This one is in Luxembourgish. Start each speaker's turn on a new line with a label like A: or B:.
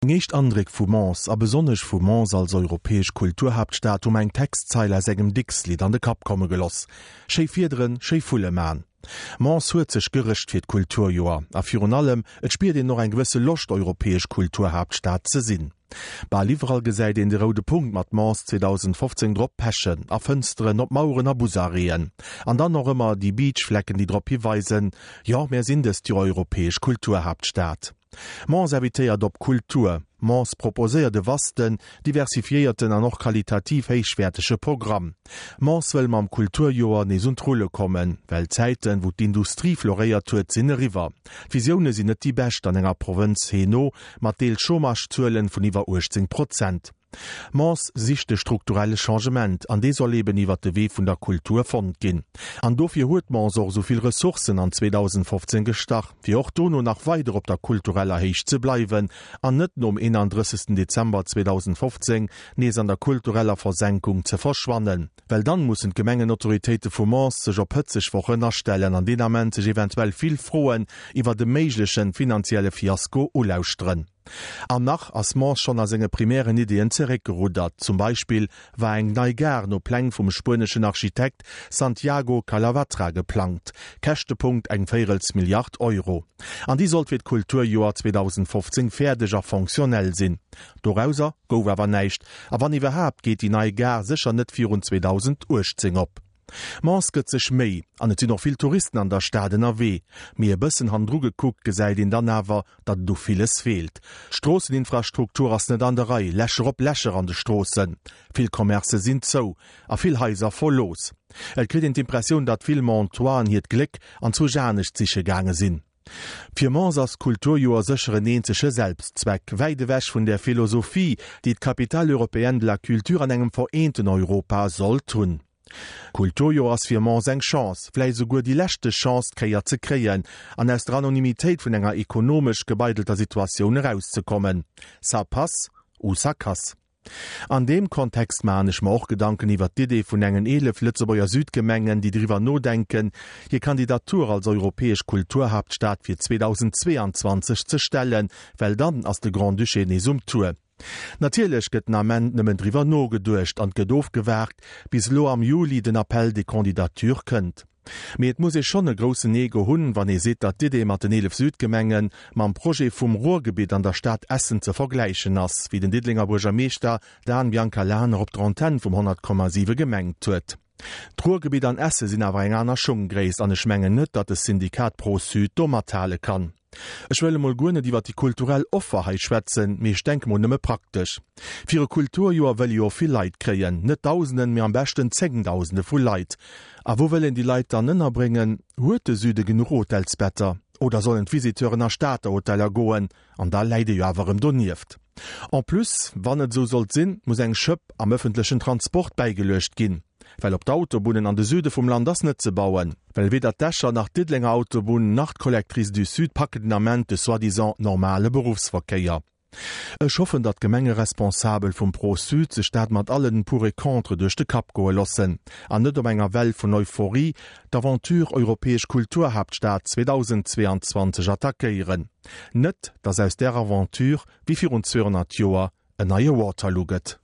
A: Meng éischt Andréck vu Mons, a besonnesch vu Mons als europäesch Kulturhaaptstad, hu mer eng Textzeil aus engem Dicks-Lidd an de Kapp komme geloss, Schéi Fiederen, schéi Vulle man. Mons huet sech gerëscht fir d'Kulturjoer, a virun allem, et spiert een och eng gewësse Loscht europäesch Kulturhaaptstad ze sinn. Bal iwwerall gesäit een de roude Punkt mat Mons 2015 drop pechen, a Fënsteren, op Maueren a Busarrêten. An dann och ëmmer déi Beachflecken, déi drop hiweisen, jo, mär sinn dëst Joer europäesch Kulturhaaptstad. Mons invitéiert op Kultur. Mons proposéiert e vasten, diversifiéierten an och qualitativ héichwäertege Programm. Mons wëll mam Kulturjoer nees un d'Rulle kommen, well d'Zäiten, wou d'Industrie floréiert huet, sinn eriwwer. D'Visioune sinn net déi bescht an enger Provënz Hainaut mat deels Chômagezuelen vun iwwer 18 Prozent. Mons sicht de strukturelle Changement, an dee soll eben iwwert de Wee vun der Kultur fonnt ginn. An dofir huet Mons och esou vill Ressourcen an 2015 gestach, fir och dono nach weider op der kultureller Héicht ze bleiwen an net nom 31. Dezember 2015 nees an der kultureller Versenkung ze verschwannen. Well dann mussen d'Gemengenautoritéite vu Mons sech op hëtzeg Wochen astellen an deen Ament sech eventuell vill Froen iwwert e méiglechen finanzielle Fiasko ulauschteren. An nach ass Mons schonn a senge primären Ideeën zeréckgeruddert. Zum Beispill war eng nei Gare no Pläng vum spueneschen Architekt Santiago Calavatra geplangt, Käschtepunkt eng véirels Milliard Euro. An déi sollt fir d'Kulturjoer 2015 fäerdeg a fonctionnel sinn. Dorauser gouf awer näischt, a wann iwwerhaapt geet déi nei Gare sécher net virun 2018 op. Mons gëtt sech Méi, an et sinn och vill Touristen an der Stad ënnerwee. Mee e bëssen hannendru gekuckt gesäit een dann awer, datt et u villes feelt. D'Stroosseninfrastruktur ass net an der Rei, Lächer op Lächer an de Stroossen, vill Commercë sinn zou a vill Haiser verlooss. Et kritt een d'Impressioun, datt vill Montoisen hiert Gléck anzwousch anescht siche gaange sinn. Fir Mons ass d'Kulturjoer sécher en eenzege Selbstzweck, wäit ewech vun där Philosophie, déi d'Capitale européenne de la culture an engem vereenten Europa sollt hunn. D'Kulturjoer ass fir Mons eng Chance, vläicht esouguer déi leschte Chance, d'Kéier ze kréien an aus der Anonymitéit vun enger ekonomesch gebeidelter Situatioun erauszekommen. Ça passe ou ça casse. An deem Kontext maachen ech mer och Gedanken iwwert d'Idee vun engen 11 Lëtzebuerger Südgemengen, déi driwwer nodenken, hir Kandidatur als europäesch Kulturhaaptstad fir 2022 ze stellen, well dann ass de Grand-Duché nees um Tour. Natierlech gëtt den Ament nëmmen driwwer nogeduecht an 't gëtt ofgewaart, bis elo am Juli den Appel des candidatures kënnt. Mee et muss ee schonn e groussen Ego hunn, wann ee seet, datt d'Idee mat den 11 Südgemenge mam Projet vum Ruhrgebitt an der Stad Essen ze vergläichen ass, wéi den Diddelenger Buergermeeschter Dan Biancalana op der Antenn vum 100,7 gemengt huet. D'Ruhrgebitt an Essen sinn awer eng aner Schunggréisst an ech mengen net, datt de Syndikat Pro-Sud do mathale kann. Ech wëll emol guer net iwwer déi kulturell Offer hei schwätzen, mee ech denke mol nëmme praktesch. Fir e Kulturjoer wëll ee jo och vill Leit kréien, net Dausenden, mee am beschten Zéngdausende vu Leit. A wou wëll een déi Leit dann ënnerbréngen? Huet de Süde genuch Hotelsbetter? Oder sollen d'Visiteuren a Stater Hoteller goen? An da läit ee jo awer erëm donieft. En plus, wann et esou sollt sinn, muss eng Schëpp am ëffentlechen Transport bäigeluecht ginn. Well op d'Autobunnen an de Süde vum Land ass net ze bauen. Well weder d'Escher nach d'Diddelenger Autobunn nach d'Collectrice du Sud packen den Ament de soi-disant normale Beruffsverkéier. Ech hoffen, datt d'Gemengeresponsabel vum Pro-Sud sech dat mat allen Pour et Contre duerch de Kapp goe lossen an net op enger Well vun Euphorie d'Aventure Europäesch Kulturhaaptstad 2022 attackéieren. Net, datt aus där Aventure, wéi virun 200 Joer, en neie Waterloo gëtt.